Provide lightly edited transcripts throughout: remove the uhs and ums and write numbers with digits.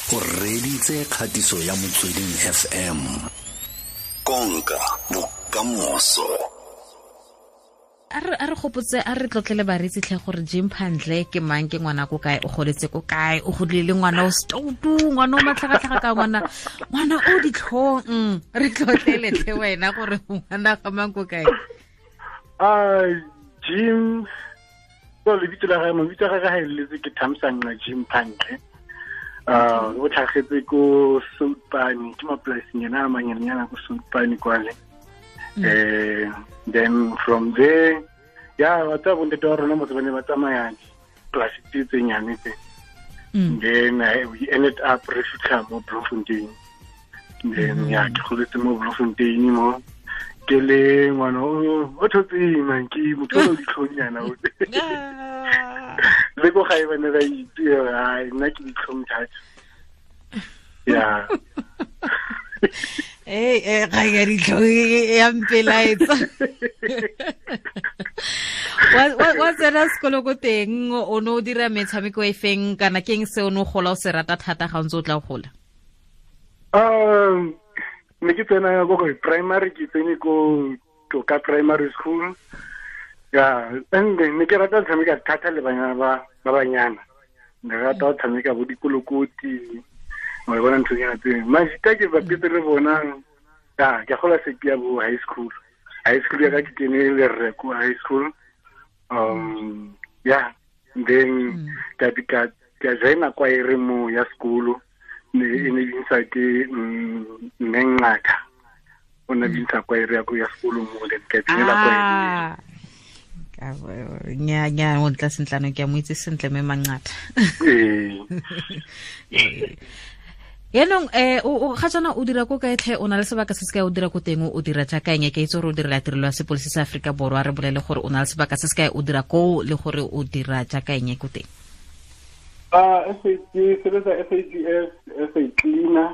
O reditse kgatiso ya Motsweding FM. Konka bokamoso. A re gopotse, a re tlotlele bareetsi tlhe gore Jim Phandle ke mang, ke ngwana ko kae, o goletse ko kae, o godile le ngwana o stoutu, ngwana o matlhagatlhaga ka ngwana o ditlhong. Re tlotlele tlhe wena gore ngwana ga mang ko kae. Jim, so lebitso la gagwe, mabitso a gagwe ga eletse ke Thamsanqa Jim Phandle. O tlhagetse ko Soutpane, ke mapolasing ena a manyenyana ko Soutpane kwale. Then from there, yeah, wa tsa bontate wa rona motse ba ne ba tsamaya polasi tse tse nyane tse. Then we ended up re fitlha mo Bloemfontein. Then yeah, ke goletse mo Bloemfontein mo. Ke le ngwana o thotseng man, ke motho o ditlhongnyana o. Le ko gae ba ne ba itse, ai nna ke ditlhong thata. Yeah. Ga ya ditlhong ya mpelaetsa. Wa tsena sekolo ko teng, o ne o dira metshameko e feng kana ke eng se o ne o gola o se rata thata ga o ntse o tla gola? Ne ke tsena ko primary, ke tsene ko Toka Primary School. Yeah, and then ne ke rata go tshameka thata le banyana ba banyana. Ne rata go tshameka bo dikolokoti. Wa bona ntho tsena tse. Majita ke bapetse le bona. Ya, ke gola sepia bo high school. High school ya ka ke kene le rre ko high school. Yeah, then ka joina kwaere mo ya sekolo. Ne e ne bintsha ke mme Ngaka. O ne bintsha kwaere ya ko ya sekolo mo, then ka tsenela kwaere. Nya nya o tla sentlano ke a mo itse sentle mme Mangata. Yaanong o ga jaana o dira ko kae tlhe, o na le sebaka se se kae o dira ko teng, o dira jaaka eng? Ke itse gore o direla tirelo ya sepodisi sa Aforika Borwa, re bolele gore o na le sebaka se se kae o dira koo le gore o dira jaaka eng ko teng. Ke sebetsa SAPS as a cleaner.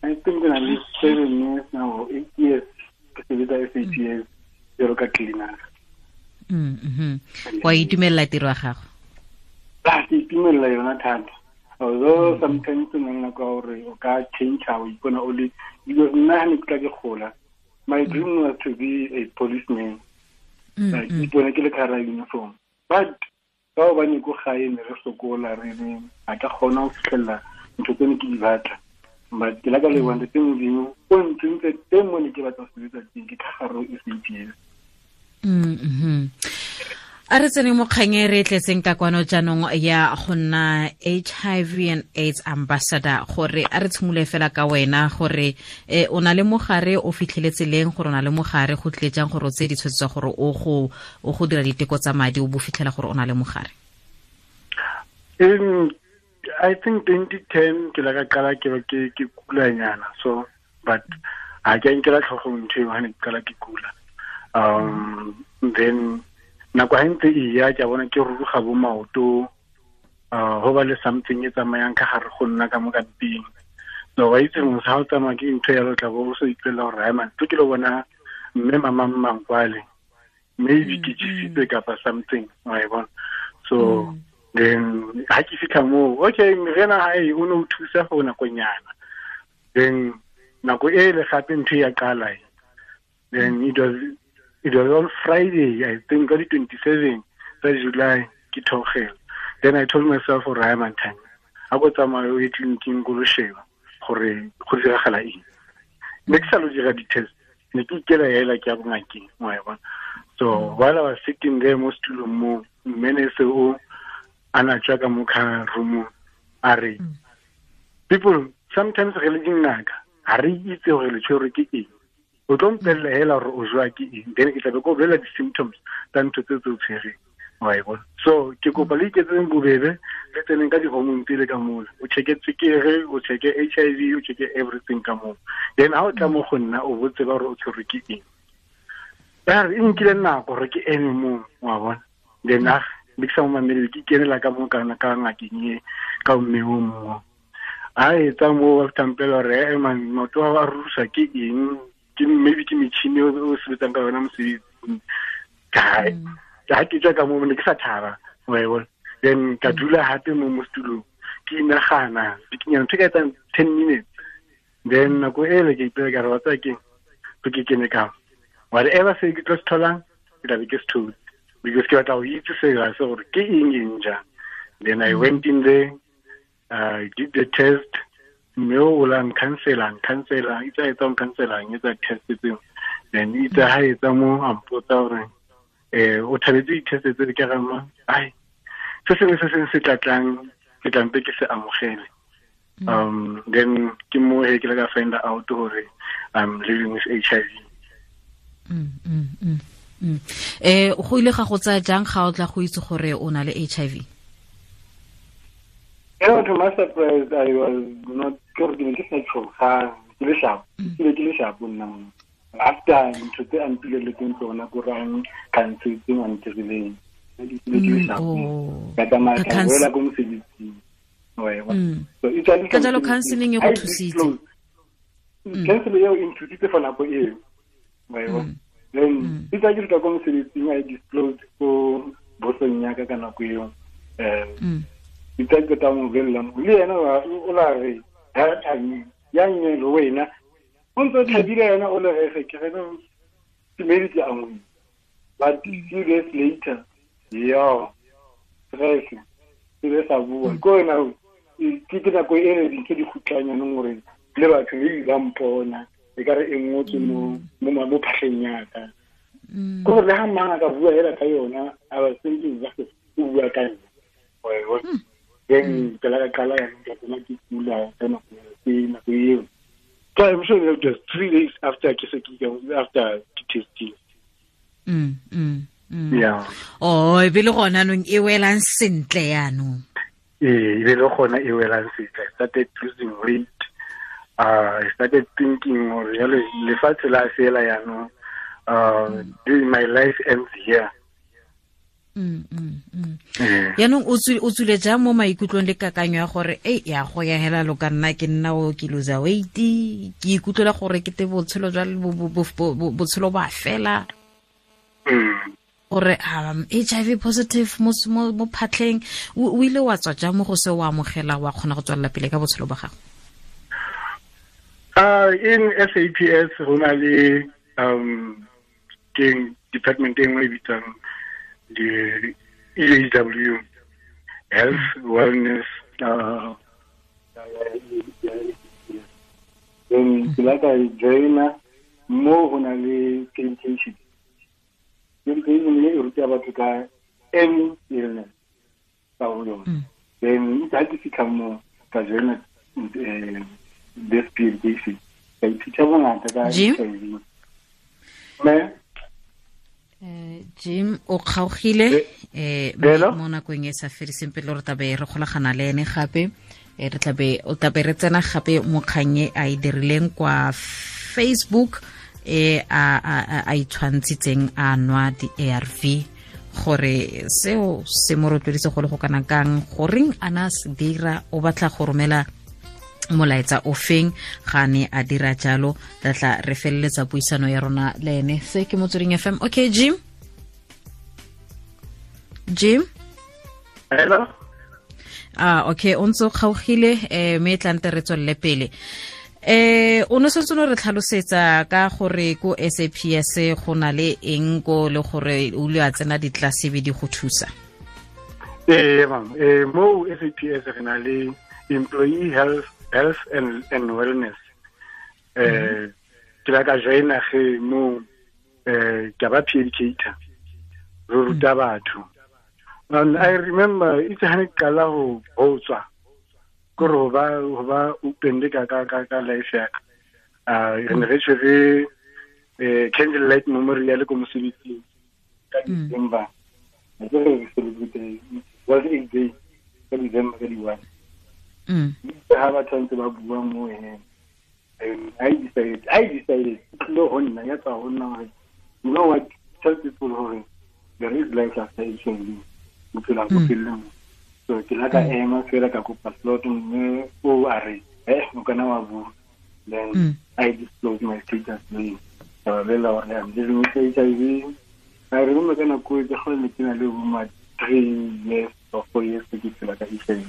I think ke na le 7 years now, 8 years ke sebetsa SAPS jalo ka cleaner. Wa itumelela tiro ya gago? Ke itumelela yona thata. Although sometimes o nna ka gore o ka change o ipona o le, because nna ha ne ke tla ke gola, my dream was to be a policeman. Like ipona ke le ka hara uniform. But ka hobane ko gae ne re sokola, re ne a ka kgona ho fihlella ntho tse ne ke di batla. But ke la ka leboha Ntate Modimo, o ntsentse teng mo ne ke batla ho sebetsa teng, ke ka gare ho SAPS. A re tsene mo kgang e re tletseng ka kwano jaanong ya go nna HIV and AIDS ambassador, gore a re tshimole fela ka wena gore o na le mogare, o fitlheletse leng gore o na le mogare, go tlile jang gore o tseye ditshwetso tsa gore o go dira diteko tsa madi o bo fitlhela gore o na le mogare? In I think 2010 ke la ka qala ke ke kulanyana, so but ha ke nkela tlhogong ntho eo ha ne ke qala ke kula. Then nako ha ntse e ya ke bona ke ruruga bo maoto, ho ba le something e tsamayang ka gare go nna ka mo ka mpeng. So wa itse motho ha o tsamaya ke ntho ya lo tla bo o so ipelela gore hai man, tlo ke lo bona mme mama Mmangkwale, maybe ke jesitse kapa something, wa e bona. So then ha ke fitlha moo, okay, meriana ha e o ne o thusa for nakonyana. Then nako e le gape ntho ya qala. Then it was on Friday, I think, on the 27th of July, ke theogela. Then I told myself, gore hai man, time a go tsamaya o ye tleliniking ko lo sheba gore go diragala eng. Ne ke sa lo dira di-test, ne ke ikela hela ke ya bongakeng, wa e bona. So while I was sitting there mo setulong mo, mme ne se o a na tswa ka mo car room-ong, a re, people, sometimes re le dingaka, ha re itse gore le tshwerwe ke eng. O tlo mpella hela gore o jowa ke eng, then ke tla be ke o bolella di-symptoms tsa ntho tse tse o tshwereng, wa e bona. So ke kopa le iketseng bobebe, le tseneng ka di-hormone tsele ka mola, o check-e tswekere, o check-e HIV, o check-e everything ka moo. Then ha o tla mo go nna, o bo tseba gore o tshwerwe ke eng. Ya re, e nkile nako gore ke eme moo, wa bona. Then ne ke sa mo mamele, ke ikenela ka mo kana ka ngakeng e, ka mme o mongwe. Ha etsa moo, ba fihla mpela hore, man, maoto a rusa ke eng? Ke maybe ke metjhini o sebetsang ka yona mosebetsing. Ka ha ke tswa ka moo, ne ke sa thaba, wa e bona. Then ka dula hape mo mo setulong. Ke ke inagana bikinyana ntho e ka etsang 10 minutes. Then nako ele ke ipela ka re wa tsaya keng ke kene ka whatever se ke tlo se tholang ke tla be ke se thotse, because ke batla go itse sela se gore ke eng eng jang. Then I went in there, I did the test, mme o la ncancela itse a etsa ncancela etsa test tseo. Then itse ha etsa mo a mpotsa gore o thabetse di-test tse ke rama ai se sengwe se sengwe se tlatlang ke tlampe ke se amogele. Then ke mo he ke la ka find out gore I'm living with HIV. Go ile ga go tsaya jang ga o tla go itse gore o na le HIV? To my surprise, I was not ke ne ke sa tshoga, ke le sharp, ke le sharp nna. After ntho tse a mpileletseng tsona ko rang khansetseng a ntirileng, ke le sharp. Ka tsamaya ka boela ko mosebetsing. So ka jalo counseling e go thusitse. Counseling eo e nthusitse for nako eo. Then itse ke tla ko mosebetsing, I disclosed ko bosong ya ka ka nako eo. Itse ke tla mo bolella le yena o la re ya nne le wena o ntse thabile yena o le re ke re ke maybe ke angwe. But few days later, yo stress ke le sa bua ko wena ke ke nako e re dintho di khutlanya nong gore le batho le ba mpona e ka re e ngotswe mo mo phahleng ya ka. Ko le ha mang a ka bua hela ka yona, I was thinking that o bua ka nna. Then ke la ka qala ya ke tsena ke kula ka nako eo. So I'm sure it was 3 days after ke se ke after testing. Yeah. Oh, e be le gona nong e welang sentle yanong. E be le gona e welang sentle. I started losing weight. I started thinking gore jale lefatshe la fela yanong. My life ends here. Yaanong o tswile jang mo maikutlong le kakanyo ya gore e ya go ya hela lo ka nna ke nna o ke lose weight, ke ikutlwela gore ke te botshelo jwa botshelo ba fela, gore HIV positive mo phatlheng, o ile wa tswa jang mo go se o amogela wa kgona go tswelela pele ka botshelo ba gago? In SAPS go na le ke department e nngwe e bitswang the EHW, Health Wellness. Then ke la ka joina mo go na le education. Education e ruta batho ka any illness ka go yona. Then ha ke fitlha mo ka joina this PhD. Ka ithuta bongata ka HIV. Jim o kgaogile mo nakong e sa fediseng pele re tlabe re golagana le ene gape, re tlabe o tlabe re tsena gape mo kgang e a e dirileng kwa Facebook a itshwantshitseng a nwa di-ARV gore seo se mo rotloeditse go le go kana kang, goreng a na se dira, o batla go romela molaetsa o feng ga ne a dira jalo. Re tla re feleletsa puisano ya rona le ene. Se ke Motsweding FM. Okay, Jim. Hello. Okay, o ntse o kgaogile mme e tlante re tswelele pele. O ne sentse no re tlhalosetsa ka gore ko SAPS go na le eng ko le gore o ile a tsena ditlase be di go thusa. Ma'am, mo SAPS re na le employee health and wellness. Ke la ka joina ge mo ke ba peer educator, re ruta batho. And I remember itse ha ne qala ho tswa gore ho ba open le ka life ya ka. Re ne re tshwere candle light memorial ko mosebetsing ka December. Re re celebrate was it day ka December ka di-1. Ha batho ntse ba bua mo ene, I decided no ho nna ya tswa ho nna hore you know what, tell people hore there is life after HIV, bophelo bo felle. So ke la ka ema fela ka kopa slot mme o a re o kana wa bua. Then I disclosed my status le ka ba bolella hore I'm living with HIV. I remember ka nako e ke kgone ke na le bo ma 3 years or 4 years ke phela ka HIV.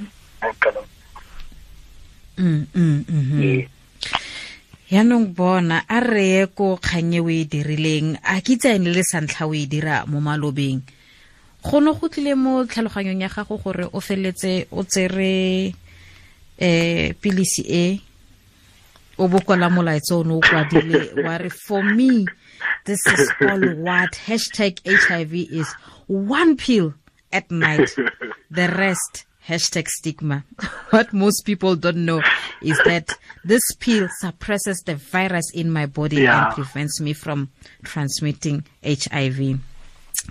Yaanong bona a reye ko kgang e o e dirileng, a ke itse ene le santlha o e dira mo malobeng, go ne go tlile mo tlhaloganyong ya gago gore o feletse o tsere pilisi e o bokola molaetsa o ne o kwadile wa re, for me this is all what hashtag HIV is, one pill at night, the rest hashtag stigma. What most people don't know is that this pill suppresses the virus in my body and prevents me from transmitting HIV.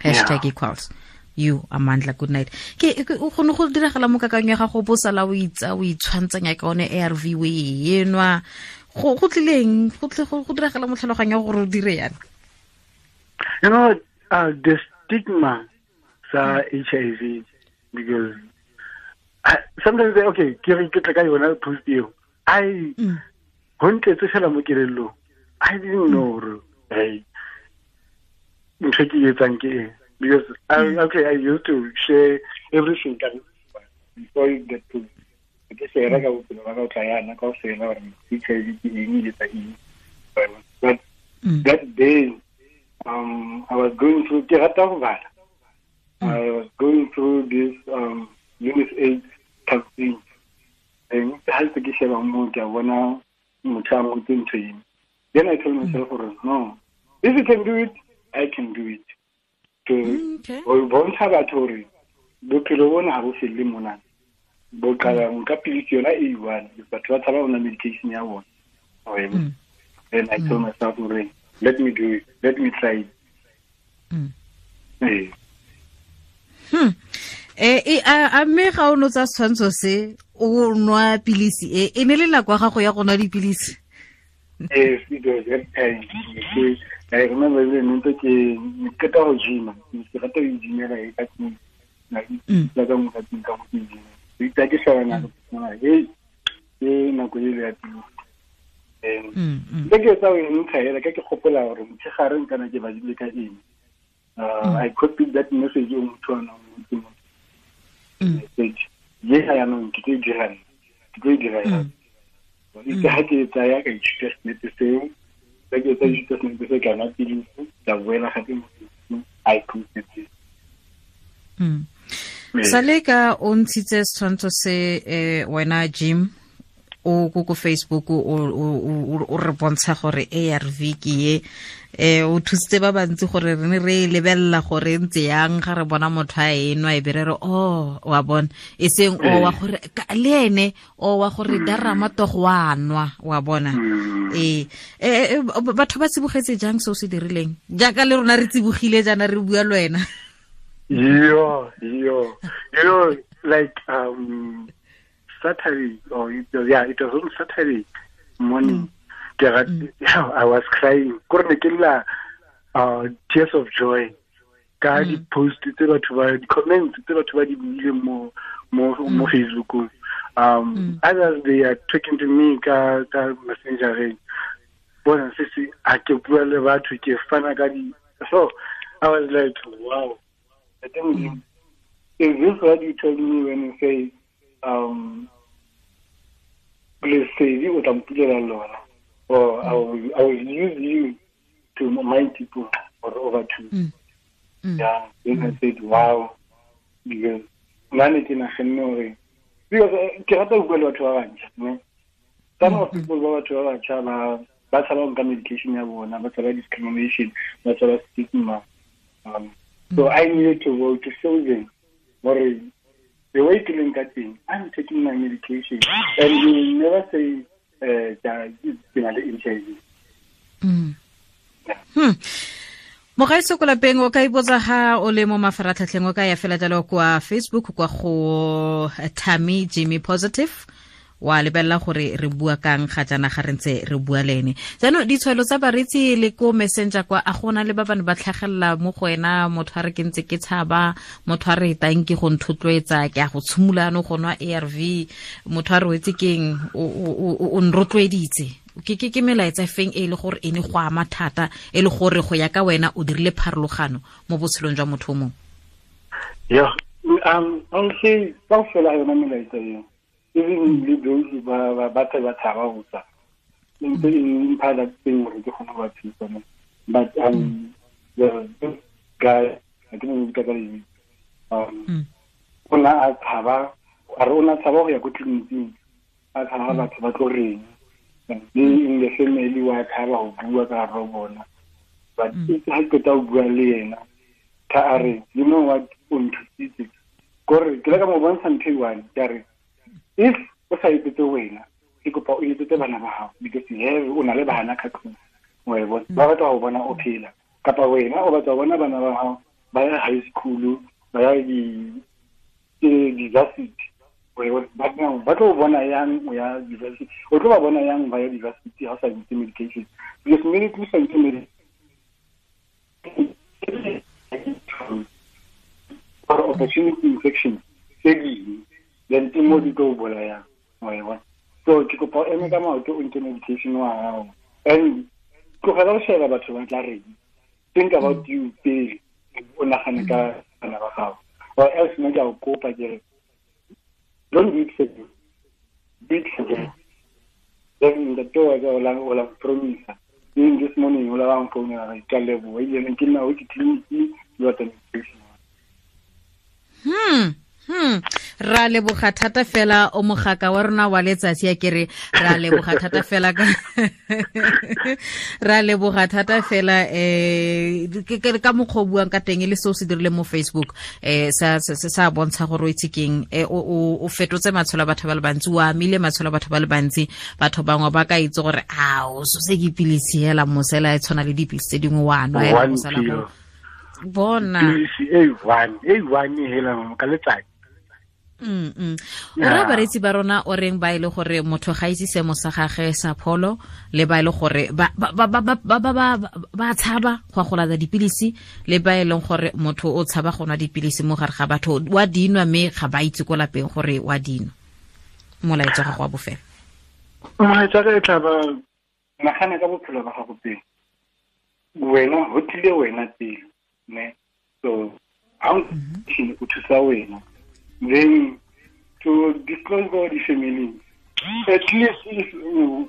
Hashtag equals you, Amandla. Good night. Ke o kgone go diragala mo kakang ya gago bo sala o itsa o itshwantsanya ka one ARV o e enwa, go tlileng go diragala mo tlhaloganyong ya gore o dire yana? You know, the stigma sa HIV, because sometimes okay, ke re ke tla ka yona post eo, I go ntletse fela mo kelellong, I didn't know gore hey ntho ke etsang ke eng, because I used to share everything before you get to ke share ka bophelo ba ka o tla yana ka ofela gore HIV ke eng e etsa eng. But that day I was going through, ke rata go bala, I was going through this UNICEF campaign. And ha ke sheba mo ke bona motho a ngotse ntho eng. Then I told myself, no, if you can do it, I can do it. To bontsha batho hore bophelo bona ha bo felle mona, bo qala nka pilisi yona e one, batho ba tshaba ona medication ya bona. Then I told myself, let me do it, let me try it. A mme ga o no tsa setshwantsho se o nwa pilisi e, e ne le nako ya gago ya go nwa dipilisi? Yes, it was that time. I remember le ntse ke qeta go gym, ke rata go gymela e ka tlung, la ka mo ka tlung ka go gym. Ke ke sheba nako, hey, ke nako e le ya pilisi. Ke ke tsa o ntsha hela ka ke gopola gore motshegare nkana ke badile ka eng. I copied that message o motho ana o message. Ye ha ya nong ke tlo dira, ke tlo dira ya. Itse ha ke tsaya ka ithuta senepe seo, ka ke tsa ithuta senepe se kana pilisi, ka boela gape mo I posted it. Sale ka o ntshitse setshwantsho se wena Jim o ko Facebook o re bontsha gore ARV ke ye, o thusitse ba bantsi gore re ne re lebella gore ntse yang ga re bona motho a enwa e be re re oh wa bona, e seng o wa gore le ene o wa gore darama togo wa nwa wa bona. Batho ba tsibogetse jang se o se dirileng jaaka le rona re tsibogile jaana re bua le wena? Yo, you know, like Saturday, or it was on Saturday morning. I was crying. Tears of joy. Ka di post tse batho ba di comments tse batho ba di buileng mo Facebook. Others they are talking to me ka messenger. Bona sisi a ke bua le batho ke fana ka di. So I was like, wow. I think is this what you told me when you say please say you would or I will use you to my people or over to. Yeah, then I said, wow, because because some of people ba batho ba batjha ba tshaba nka medication ya bona, ba tshaba discrimination, ba tshaba stigma. So I needed to go to show them the way to link that thing. I'm taking my medication, and you will never say that it's HIV. Mogaetso ko lapeng o ka ipotsa ga o le mo mafaratlhatlheng, o ka ya fela jalo kwa Facebook kwa go Thami Jimmy Positive, wa lebelela gore re bua kang ga jaana ga re ntse re bua le ene. Jaanong ditshwaelo tsa bareetsi le ko messenger kwa, a gona le ba bane ba tlhagelela mo go wena, motho a re ke ntse ke tshaba, motho a re tang ke go nthotloetsa, ke a go tshimolano go nwa ARV, motho a re wetse keng o nrotloeditse. Ke melaetsa feng e le gore e ne go ama thata, e le gore go ya ka wena o dirile pharologano mo botshelong jwa motho o mongwe? Yeah, I'll say kaofela yona melaetsa eo. Even le those ba ba ba tshaba go tsa ntse e mpha that thing gore ke kgone go ba thusa ne. But the this guy, I ke mo bitsa ka lebitso, o na a tshaba, a re o na tshaba go ya ko tleliniking, a tshaba batho ba tlo reng, le in the family wa tshaba go bua ka gare bona. But ha ke qeta go bua le yena, ka a re, you know what, o nthusitse kore ke le ka mo bontsha ntho e one, ke a re if o sa etsetse wena, ke kopa o etsetse bana ba gago, because you have, o na le bana ka tlung, wa e bona, ba batla go bona o phela, kapa wena o batla go bona bana ba gago ba ya high school, ba ya di-varsity, wa e bona, ba tlo bona yang o ya university, o tlo ba bona yang ba ya university ha o sa itse medication, because immediately o sa itse medication or opportunity infection tse dingwe, then ke mo di tlo bolayang, wa e bona. So ke kopa o eme ka maoto, o nke medication wa gago, and tlogela go sheba batho ba tla reng. Think about you pele, o nagane ka bana ba gago, or else nna ke a go kopa ke re don't do it for you, do it for them. Then ntate wa ka o la promise even this morning, o la ba mfounela, ke a leboha, ebile ke nna o ke tleliniking le batla medication. Ra leboga thata fela o mogaka wa rona wa letsatsi, a kere ra leboga thata fela ka ra leboga thata fela ke ka mokgwa o buang ka teng le seo se dirile mo Facebook, sa sa bontsha gore o itse keng, o fetotse matshelo a batho ba le bantsi, o amile matshelo a batho ba le bantsi. Batho bangwe ba ka itse gore a o so se ke pilisi hela mosela e tshwana le dipilisi tse dingwe wa nwa hela mosela go bona pilisi e one hela ka letsatsi. O ra bareetsi ba rona o reng ba ile gore motho ga itse seemo sa gagwe sa pholo, le ba ile gore ba ba tshaba go go lata dipilisi, le ba e leng gore motho o tshaba go nwa dipilisi mo gare ga batho, wa dinwa mme ga ba itse ko lapeng gore wa dinwa. Molaetsa ga go wa bofelo. Molaetsa ka e tla ba nagana ka bophelo ba gago pele, wena ho tlile wena pele ne, so ha o thusa wena, then to disclose all the family, at least if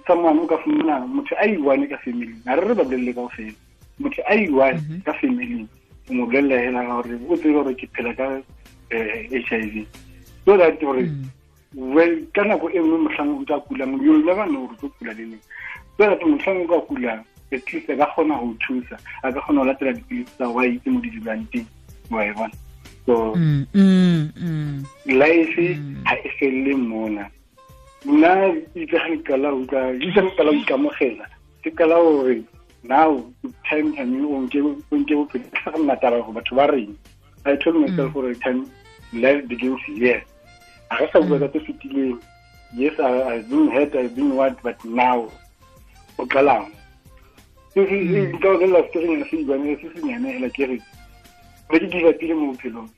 someone o ka fumana motho a i-one ka family, ha re ba bolelle kaofela, motho a i-one ka family, o mo bolella hela hore o tsebe hore ke phela ka HIV, so that hore well ka nako e nngwe mohlang o tla kulang, you'll never know hore o tlo kula le neng, so that mohlang o ka kulang at least a ka kgona ho thusa, a ka kgona ho latela dipilisi tsa wa itse mo di dulang teng, wa e bona. So life ha e felle mona. Nna itse ga ke qala ho utlwa, itse ga ke qala ho ikamogela, ke qala hore now time time o nke bophelo, ke sa nna taba hore batho ba reng. I told myself hore time life begins here. Ha re sa bua ka tse fetileng. Yes, I've been hurt, I've been what, but now o qalang. Se nka o bolella story se ibanele se senyane hela ke re ne ke give up-ile mo bophelong,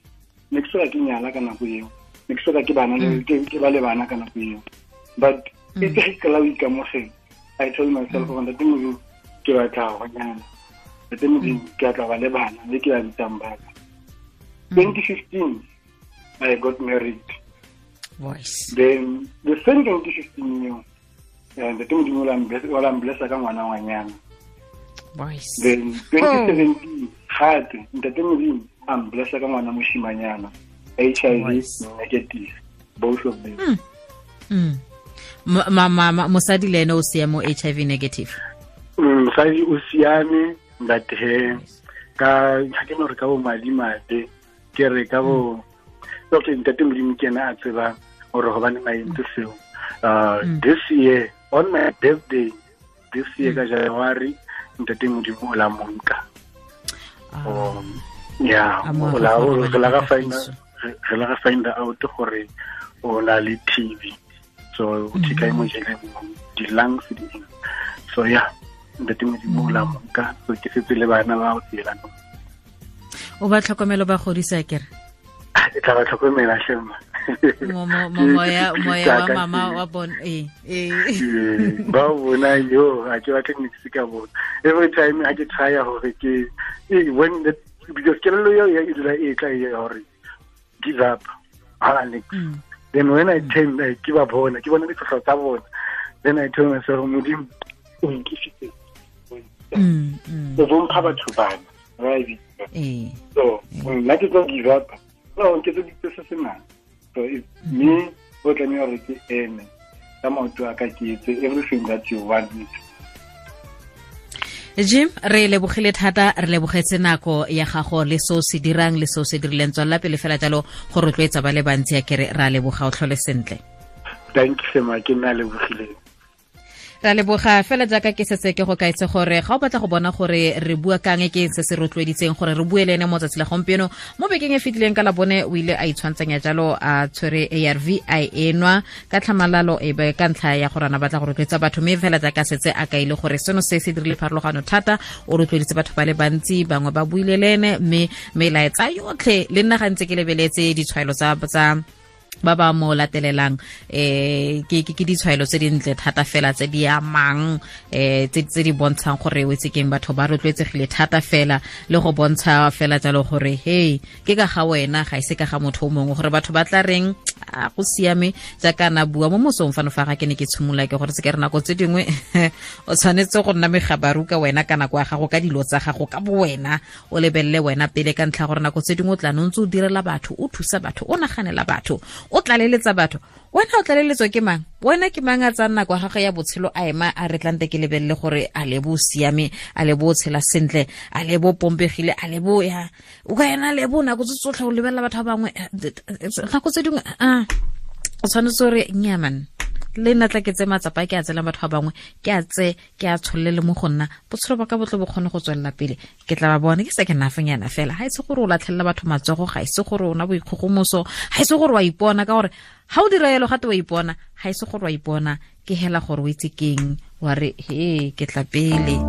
ne ke soka ke nyala ka nako eo, ne ke soka ke bana le ke ba le bana ka nako eo, but itse ga ke qala ho ikamogela, I told myself gore ntate Modimo ke batla go nyala, ntate Modimo ke batla ba le bana le ke ba bitsang ba ka. 2015 I got married. Voice. Then the same 2015 eo, ntate Modimo o la mblessa ka ngwana ngwanyana. Voice. Then 2017 gape ntate Modimo a mblessa ka ngwana moshimanyana, HIV negative, both of them. Mosadi le ene o siame o HIV negative? Mosadi o siame, but he ka ha ke no re ka bo madimabe, ke re ka bo okay, ntate Modimo ke ena a tsebang hore hobaneng a entse seo. This year on my birthday, this year ka January, ntate Modimo o la monka. Yeah, o la re find out gore o na le TB, so o thika mo jele di lungs di eng. So yeah, ntate Modimo o la monka, so ke setse le bana ba o tsela. O ba tlhokomelo ba godisa kere? Ke tla ba tlhokomela shema. Moya wa mama wa bon ba bona yo a ke batla nix ka bona. Every time I get try hore ke when the because kelello eo e dula e tla e hore give up ha nix. Then when I turn, ke ba bona, ke bona ditlhotlho tsa bona. Then I tell myself, Modimo, o nkisitse. O bompha batho bana, right? So, nna ke tlo give up. No, ke tlo ditse se se nang. So, it's me, o tlameha hore ke eme ka maoto a ka, ke etse everything that you want me to. Jim, re lebogile thata, re lebogetse nako ya gago le se o se dirang le se o se dirileng. Tswelela pele fela jalo go rotloetsa ba le bantsi, ya kere ra leboga, o tlhole sentle. Thank you, Sema, ke nna lebogileng. Ra leboga fela jaaka ke setse ke go kaetse gore ga o batla go bona gore re bua kang, ke se se rotloeditseng gore re bue le ene mo tsatsi la gompieno. Mo bekeng e fetileng ka la bone o ile a itshwantsanya jalo a tshwere ARV a enwa ka tlhamalalo, e be ka ntlha ya gore ana batla go rotloetsa batho, mme fela jaaka setse a kaile gore seno se se dirile pharologano thata, o rotloeditse batho ba le bantsi, bangwe ba buile le ene, mme melaetsa yotlhe le nna gantse ke lebeletse ditshwaelo tsa ba ba mo latelelang, ke ke ditshwaelo tse dintle thata fela tse di amang, tse di bontshang gore o itse keng, batho ba rotloetsegile thata fela, le go bontsha fela jalo gore hey, ke ka ga wena, ga ise ka ga motho o mongwe, gore batho ba tla reng, a go siame. Jaaka na bua mo mosong fano fa ga ke ne ke tshimola, ke gore se ke re nako tse dingwe o tshwanetse go nna megabaru ka wena ka nako ya gago, ka dilo tsa gago, ka bo wena, o lebelele wena pele, ka ntlha gore nako tse dingwe o tla no ntse o direla batho, o thusa batho, o naganela batho, o tlaleletsa batho, wena o tlaleletswa ke mang? Wena ke mang a tsaya nako ya gagwe ya botshelo a ema a re tlante ke lebelele gore a lebo o siame, a lebo o tshela sentle, a lebo o pompegile, a lebo ya o ka ena lebo nako tse tsotlhe o lebelela batho ba bangwe. Nako tse dingwe a o tshwanetse gore nyaman le nna tla ke tse matsapa ke a tselang batho ba bangwe, ke a tse ke a tsholele mo go nna, botshelo ba ka botle bo kgone go tswelela pele, ke tla ba bone ke se ke nafenyana fela. Ga ise gore o latlhelela batho matsogo, ga ise gore o na boikgogomoso, ga ise gore wa ipona, ka gore ga o dira yalo gate wa ipona, ga ise gore wa ipona, ke hela gore o itse keng, wa re he ke tla pele,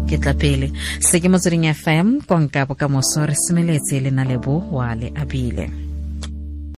ke tla pele. Se ke Motsweding FM, konka bokamoso, re semeletse le na lebo wa le abile.